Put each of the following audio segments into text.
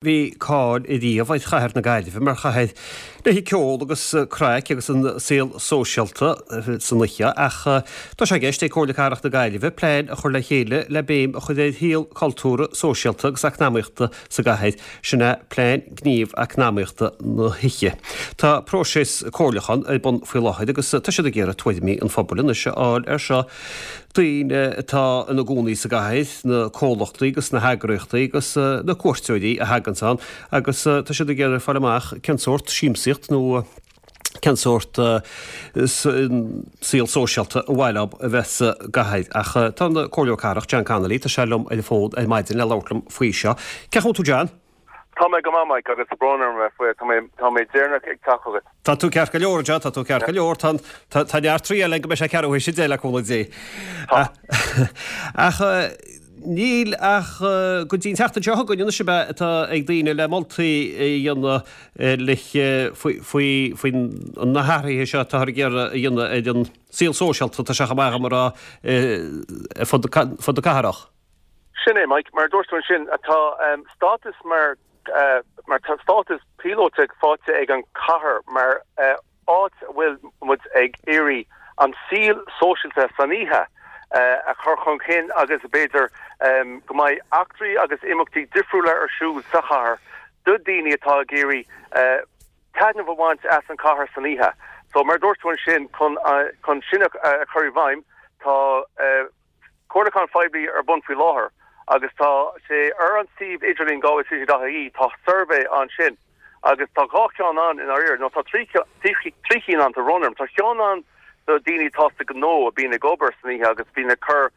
Bhí cáil riamh ar chathair na Gaillimhe mar chathair le haghaidh ceol agus craic agus an saol sóisialta san oíche ach tá sé i gceist ag Comhairle Cathrach na Gaillimhe plean a chur le chéile le béim a chur ar shaol cultúrtha, sóisialta agus eacnamaíochta sa gcathair, sin é Plean Gníomh Eacnamaíochta na hOíche. Tá próiseas comhairliúcháin ar bun faoi láthair agus tá siad ag iarraidh tuairimí an phobail anois a fháil air seo. daoine atá ina gcónaí sa gcathair, na comhlachtaí agus na heagraíochtaí agus na cuairteoirí a thaganns ann agus tá siad ag iarraidh fáil amach cén sórt siamsaíocht nó cén sórt saol sóisialta ar mhaith leo a bheith sa gcathair. Ach tá an Comhairleoir Cathrach, John Connolly, tá sé liom ar an bhfón ar maidin le labhairt liom faoi seo. Cén chaoi a bhfuil tú John? Tá mé go maith, Mike, agus tá brón orm a bheith faoi, tá mé, tá mé deireanach ag teacht chugat. Tá tú ceart go leor, John, tá tú ceart go leor. Tá, tá, tá neart triail againn go mbeidh sé ceathrú théis a 10 le cúnamh Dé. Tá. Ach níl ach go dtí an tseachtain seo chugainn anois ab ea atá ag daoine le moltaí a dhéanamh le faoi, faoi, faoi na hathruithe seo atáthar ag iarraidh a dhéanamh ar an saol sóisialta, tá sé chomh maith agam a rá, ar fud, fud na cathrach. Sin é, Mike. Mar a dúirt tú ansin, tá stádas mar mar tá stádas píolótach faighte ag an chathair mar áit a bhfuil muid ag iarraidh an saol sóisialta san oíche a chur chun cinn agus b'fhéidir go mbeidh eachtraí agus imeachtaí difriúla ar siúl sa chathair do daoine atá ag iarraidh taitneamh a bhaint as an chathair san oíche. So mar a dúirt tú ansin, chun sin a chur i bhfeidhm, tá. Comhairliúchán phoiblí ar bun faoi láthair agus tá sé ar an suíomh idirlín galwaycity.ie, tá suirbhé ansin agus tá 2 cheann ann i ndáiríre, nó tá 3 chinn ann, tá brón orm. Tá ceann ann do daoine atá sa gnó a bíonn ag obair san oíche agus bíonn ag cur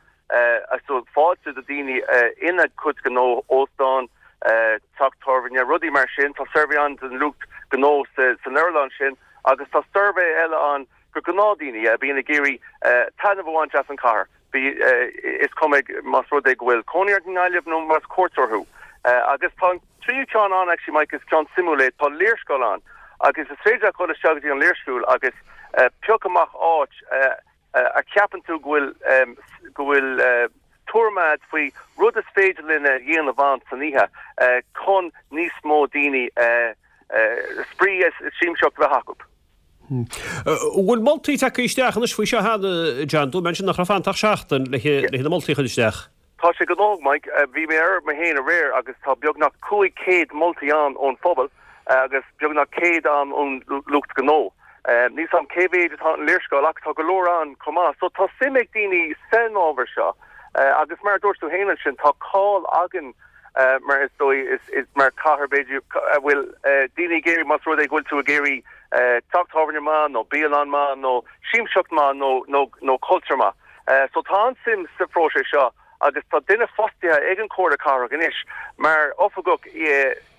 fáilte do daoine ina gcuid gnó, óstán, teach tábhairne, rudaí mar sin. Tá suirbhé ann don lucht gnó san earnáil sin agus tá suirbhé eile ann do ghnáthdaoine a bhíonn ag iarraidh taitneamh a bhaint as an chathair, is cuma más rud é go bhfuil cónaí ort i nGaillimh nó más cuairteoir thú. Agus tá an tríú ceann ann, actually Mike, is ceann suimiúil é, tá léarscáil ann agus is féidir leat dul isteach go dtí an léarscáil agus pioc amach áit a cheapann tú go bhfuil go bhfuil tuairim agat faoi rud is féidir linn a dhéanamh ann san oíche chun níos mó daoine spraoi is siamsaíocht a bheith acu. An bhfuil moltaí tagtha isteach anois faoi seo cheana, John? Dúirt mé ansin nach raibh fanta ach seachtain le na moltaí a chur isteach. Tá sé gnóthach, Mike. Bhí mé air mé féin aréir agus tá beagnach 500 moltaí ann ón phobal agus beagnach 100 ann ón lucht gnó. Níl 's a'm cé mhéid atá an léarscáil ach tá go leor ann chomh maith. So tá suim ag daoine san ábhar seo agus mar a dúirt tú féin ansin tá cáil againn mar is dóigh is mar cathair b'fhéidir a bhfuil daoine ag iarraidh más rud é go bhfuil tú ag iarraidh teach tábhairne maith nó bialann maith nó siamsaíocht maith nó nó nó cultúr maith. So tá an-suim sa phróiseas seo agus tá duine fostaithe ag an Chomhairle Cathrach anois mar oifigeach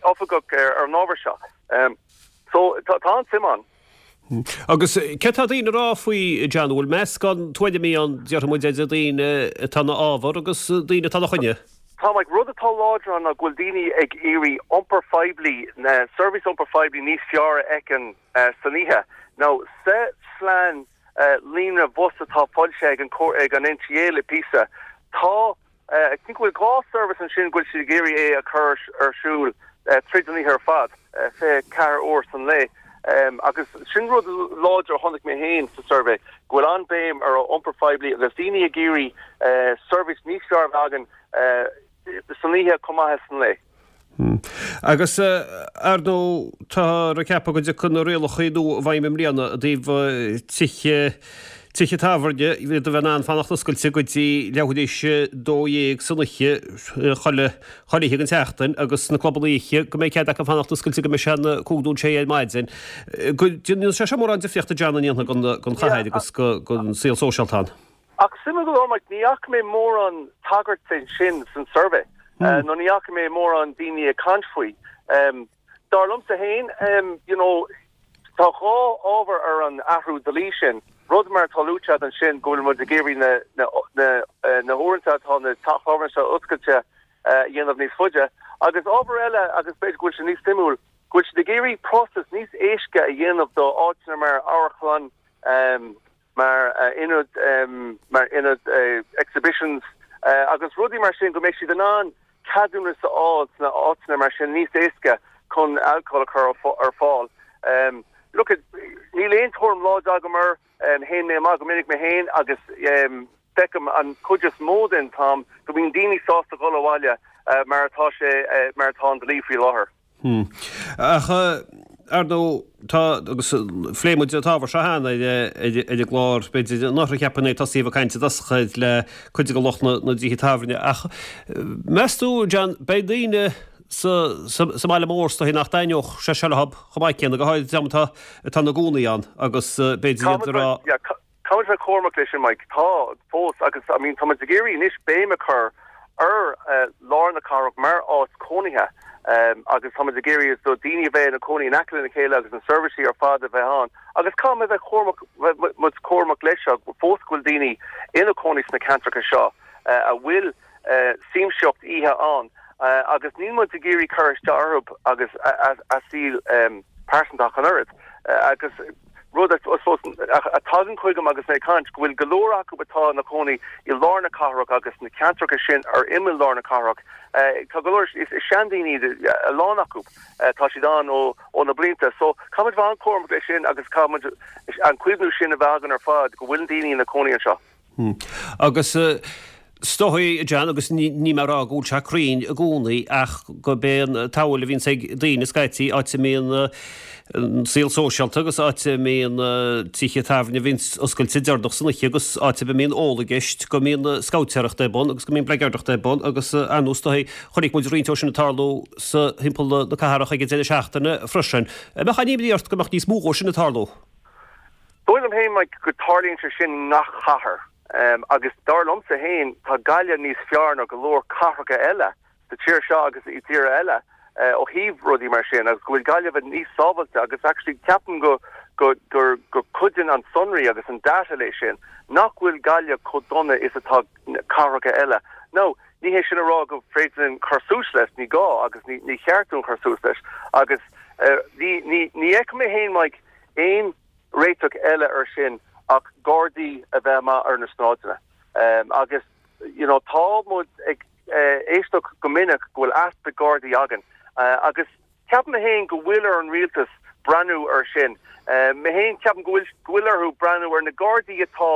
oifigeach ar an ábhar seo. So tá an-suim ann. Agus céard tá daoine a rá faoi, John? An bhfuil meascán tuairimí ann, déarfaidh muid, idir daoine atá ina fhábhar agus daoine atá ina choinne? Tá, Mike. Rud atá láidir ann ná go bhfuil daoine ag iarraidh iompar phoiblí, seirbhís iompar phoiblí níos fearr a fheiceáil san oíche. Now, sa phlean líonra bhus atá foilsithe ag an ag an NTA le píosa, tá I think go bhfuil 2 service ansin go bhfuil siad ag iarraidh é a chur ar siúl tríd an oíche ar fad, 24 uair san lae. Agus sin rud láidir a chonaic mé féin sa suirbhé, go bhfuil an-bhéim ar iompar phoiblí agus daoine ag iarraidh seirbhís níos fearr a bheith againn san oíche chomh maith is san lae. Agus, ar ndóigh, táthar ag ceapadh go dtiocfaidh na rialacha nua i bhfeidhm i mbliana i dtaobh tithe, tithe tábhairne, iad a bheith in ann fanacht oscailte go dtí leathuair tar éis a 12 san oíche chuile, chuile oíche den tseachtain agus na clubanna oíche go mbeidh cead acu fanacht oscailte go mbeidh sé ina 5 nó 6 ar maidin. Go ndéanfaidh sé seo mórán difríochta John an ndéanfaidh don chathair agus don saol sóisialta ann. Ach suimiúil go leor, Mike, ní fhaca mé mórán tagairt de sin san suirbhé, nó ní fhaca mé mórán daoine ag caint faoi. Dar liomsa féin, you know, tá dhá ábhar ar an athrú dlí sin, rud mar atá luaite agat ansin, go bhfuil muid ag iarraidh na, na, na, na huaireanta atá na teach tábhairne seo oscailte a dhéanamh níos faide, agus ábhar eile, agus b'fhéidir go bhfuil sé níos suimiúil, go bhfuil siad ag iarraidh próiseas níos éasca a dhéanamh do áiteanna mar amharclann, mar ionad, mar ionad exhibitions agus rudaí mar sin go mbeidh siad in ann. ceadúnas a fháil sna áiteanna mar sin níos éasca chun alcól a chur ar fáil. Look, níl aon tuairim láidir agam air, théann mé amach go minic mé féin agus feicim an chuid is mó den t-am go mbíonn daoine sásta dhul abhaile mar atá sé, mar atá an dlí faoi láthair. Ach, ar ndóigh, tá, agus phléigh muid an t-ábhar seo cheana ar an gclár, b'fhéidir anuraidh cheapfainn é, tosaíodh ag caint i dtosach le cuid de lucht na dtithe tábhairne. Ach meas tú, John, beidh daoine sa mbaile mór is dóichí nach dtaitneodh sé seo leo chomh maith céanna, go háirid an dream atá atá ina gcónaí ann agus b'fhéidir iad ag rá. Caithfidh muid bheith cúramach leis sin, Mike. Tá, fós, agus I mean tá muid ag iarraidh anois béim a chur ar lár na cathrach mar áit cónaithe agus tá muid ag iarraidh do daoine a bheith ina cónaí in aice lena chéile agus na seirbhísí ar fad a bheith ann. Agus caithfidh muid bheith cúramach, bheith muid cúramach leis seo fós go bhfuil daoine ina cónaí sna ceantracha seo a bhfuil siamsaíocht oíche ann agus níl muid ag iarraidh cur isteach orthu agus a saol pearsanta ach an oiread. Agus rud I suppose a tagann chugam agus mé ag caint, go bhfuil go leor acu atá ina cónaí i lár na cathrach agus na ceantracha sin ar imeall lár na cathrach, tá go leor, is seandaoine iad a lán acu, tá siad ann ó ó na blianta. So caithfidh muid bheith an-chúramach leis sin agus caithfidh muid an cuimhniú sin a bheith againn ar fad go bhfuil daoine ina cónaí anseo. Agus is dóigh, a John, agus ní mé ag rá go bhfuil sé cruinn i gcónaí ach gurb é an tsamhail a bhíonns ag daoine scaití, áit a mbíonn an saol sóisialta agus áit a mbíonn tithe tábhairne a bhíonns oscailte deireanach san oíche agus áit a mbíonn ól i gceist, go mbíonn scabhtéireacht ar bun agus go mbíonn bleageardacht ar bun agus ar ndóigh is dóigh chonaic muid roinnt dó sin ag tarlú sa thimpeall na cathrach ag an deireadh seachtaine freisin. An mbeadh aon imní ort go mbeadh níos mó dhó sin ag tarlú? Dóigh liom féin, Mike, go dtarlaíonn sé sin i ngach cathair. Agus dar liomsa féin, tá Gaillimh níos fearr ná go leor cathracha eile sa tír seo agus i dtíortha eile ó thaobh rudaí mar sin agus go bhfuil Gaillimh níos sábhailte agus actually ceapaim go go gur go cuidíonn an sonraí agus an data leis sin nach bhfuil Gaillimh chomh dona is atá cathracha eile. Now, ní hé sin a rá go féidir linn cur suas leis, ní gá agus ní ní cheart dúinn cur suas leis agus ní ní ní fheicim mé féin, Mike, aon réiteach eile ar sin ach gardaí a bheith amach ar na sráideanna. Agus you know tá muid ag éisteacht go minic go bhfuil easpa gardaí againn agus ceapaim mé féin go bhfuil ar an rialtas breathnú ar sin. Mé féin ceapaim go bhfuil go bhfuil orthu breathnú ar na gardaí atá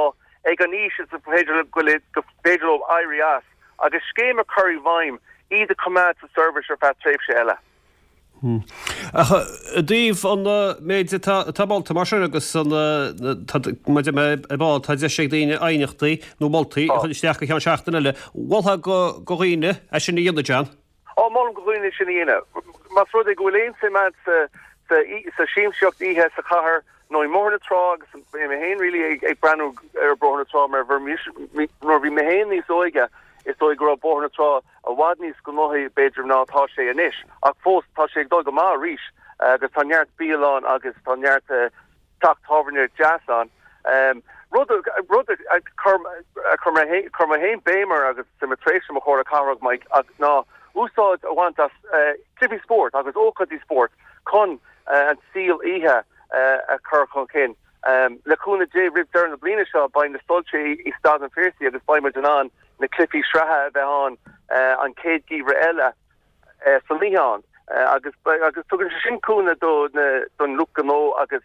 ag an aois is féidir go féidir leo éirí as agus scéim a chur i bhfeidhm iad a choimeád sa seirbhís ar feadh tréimhse eile. Ach i dtaobh an méid atá molta mar sin agus an maidir le ar ball, tá deis ag daoine aighneachtaí nó moltaí a chur isteach go ceann seachtaine eile. Mholfá do dhaoine é sin a dhéanamh, John? Á, molaim do dhaoine sin a dhéanamh. Más rud é go bhfuil aon suim agat sa siamsaíocht oíche sa chathair nó i mBóthar na Trá agus mé féin really ag breathnú ar Bhóthar na Trá mar nuair bhí mé féin níos óige is dóigh go raibh Bóthar na Trá i bhfad níos gnóthaí, b'fhéidir, ná atá sé anois. Ach fós, tá sé ag dul go maith arís agus tá neart bialann agus tá neart teach tábhairne deas ann. Rud rud a chuir chuir mé féin béim air agus sa mo thréimhse mo Chomhairle Cathrach, Mike, ná úsáid a bhaint as cluichí spóirt agus ócáidí spóirt chun an saol oíche a chur chun cinn. Le cúnamh Dé, roimh deireadh na bliana seo, beidh na soilse i Staid an Phiarsaigh agus beidh muid in ann na cluichí sraithe a bheith ann an chéad gheimhreadh eile san oíche ann agus agus tugann sé sin cúnamh do na don lucht gnó agus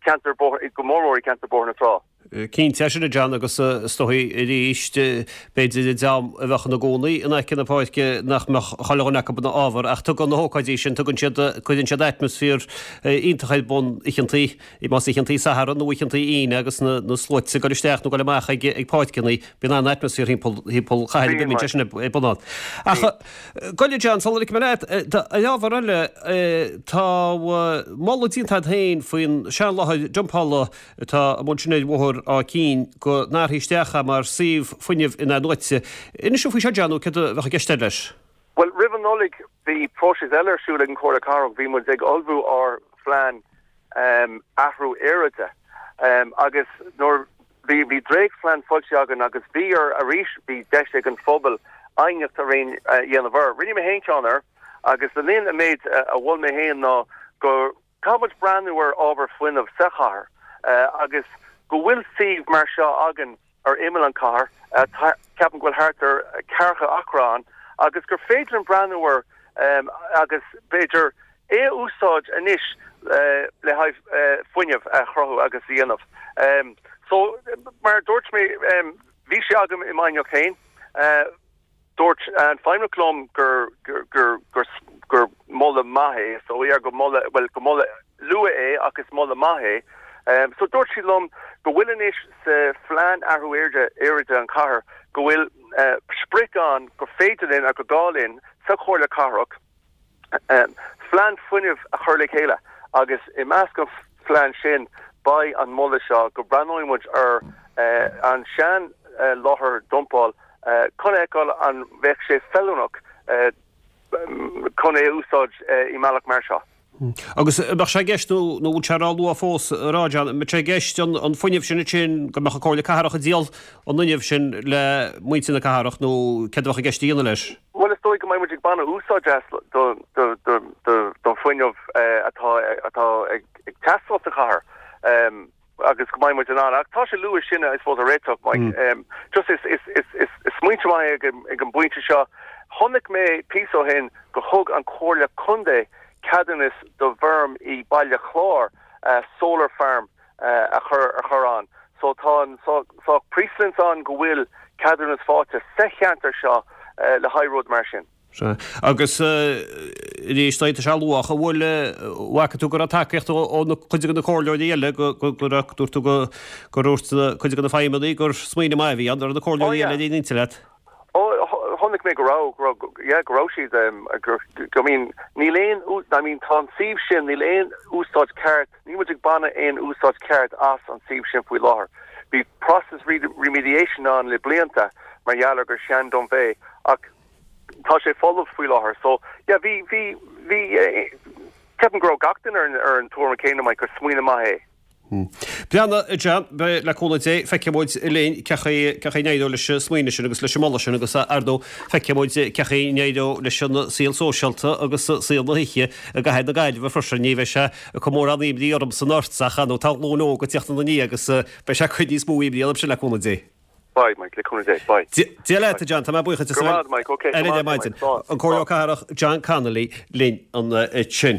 ceantar go mór mór i gceantar Bóthar na Trá. Cinnte é sin a John agus is dóigh arís b'fhéidir an dream a bheadh ina gcónaí in aice na páirce nach mbeadh chuile dhuine acu ina fhábhar ach tugann na hócáidí sin tugann siad cuireann siad atmaisféar iontach ar bun oícheantaí Más oícheantaí Sathairn nó oícheantaí Aoine agus na sluaite ag dul isteach nó ag dul amach ag páirceanna, bíonn an-atmaisféar thimpeall chathair a bíonn sé sin ar bun ann. Ach gabh i leith John, sula ligfidh mé leat, ar ábhar eile, tá moladh déanta agat féin faoin seanláthair dumpála atá amuigh ansin ar Bhóthar Áth Cinn go n-athrófaí isteach é mar suíomh fuinnimh in-athnuaite. Inis dúinn faoi seo John, nó céard a bheadh i gceist leis? Bhuel, roimh an Nollaig bhí próiseas eile ar siúl ag an Chomhairle Cathrach, bhí muid ag ullmhú ár phlean athrú aeráide agus nuair bhí bhí dréachtphlean foilsithe againn agus bhí ar arís bhí deis ag an phobal aighneacht a dhéanamh air. Rinne mé féin ceann air agus le linn an méid a mhol mé féin ná go caithfidh muid breathnú ar ábhar fuinnimh sa chathair agus go bhfuil suíomh mar seo againn ar imeall an chathair. Ceapaim go bhfuil thart ar ceathracha acra ann. agus gur féidir linn breathnú air agus b'fhéidir é a úsáid anois le haghaidh fuinneamh a chruthú agus a dhéanamh. So, mar a dúirt mé, bhí sé agam i m'aighneacht féin. Dúirt an feidhmeannach liom gur gur gur gur moladh maith é, so yeah, gur moladh, bhuel, gur moladh luath é ach is moladh maith é. So dúirt siad liom go bhfuil anois sa phlean athrú aeráide an chathair go bhfuil sprioc ann gur féidir linn agus gur gá linn sa Chomhairle Cathrach phlean fuinnimh a chur le chéile agus i measc an phlean sin beidh an moladh seo go mbreathnóidh muid ar an sean láthair dumpáil chun a fheiceáil an bheadh sé feiliúnach chun é a úsáid i mbealach mar seo. Agus an mbeadh sé i gceist, nó nó bhfuil sé ró-luath fós a rá, John, an mbeadh sé i gceist an fuinneamh sin ansin, go mbeadh an Comhairle Cathrach ag díol an fhuinnimh sin le muintir na cathrach nó céard a bheadh i gceist a dhéanamh leis? Bhuel, is dóigh go mbeidh muid ag baint úsáid as don fuinneamh atá atá ag teastáil sa chathair agus go mbeidh muid in ann. Ach tá sé luath sin, I suppose, a réiteach, Mike. Just is is is is is smaointe maith é ag ag an bpointe seo. Chonaic mé píosa ó shin gur thug an Comhairle Contae ceadúnas do bhfeirm i Baile Chláir solar farm a chur a chur ann. So tá an saghas precedence ann go bhfuil ceadúnas faighte sa cheantar seo le haghaidh rud mar sin. Sea. Agus arís, tá sé luath, an bhfuil, bhfaca tú go raibh tacaíocht ó na cuid de na comhairleoirí eile go go raibh, dúirt tú go gur dhúirt cuid de na feidhmeannaigh gur smaoineamh maith a bhí ann, an raibh na comhairleoirí eile ar aon intinn leat? Ó, chonaic mé go raibh, go raibh, yeah, go raibh siad, go, I mean, níl aon, I mean, tá an suíomh sin, níl aon úsáid ceart, Níl muid ag baineadh aon úsáid ceart as an suíomh sin faoi láthair. Bhí process remediation ann le blianta mar gheall ar gur sean dump é ach tá sé folamh faoi láthair. So yeah bhí bhí bhí ceapaim go raibh gach duine ar an ar an tuairim céanna Mike gur smaoineamh maith é. Breathnaigh a John, beidh le cúnamh Dé, feicfidh muid linn cé chaoi cé chaoi a n-éireoidh leis an smaoineamh sin agus leis an moladh sin agus ar ndóigh feicfidh muid cé chaoi a n-éireoidh leis an saol sóisialta agus saol na hoíche i gcathair na Gaillimhe freisin. Ní bheidh sé ag cur mórán imní ormsa ná ortsa ach ar ndóigh tá glúin óg ag tíocht ina ndiaidh agus beidh sé ag cur níos mó imní ormsa le cúnamh Dé. Beidh, Mike, le cúnamh Dé. Beidh. Dia leat, a John, tá mé buíoch duit. Go raibh maith, Mike, ok. Ar maidin. An Comhairleoir Cathrach John Connolly linn ansin.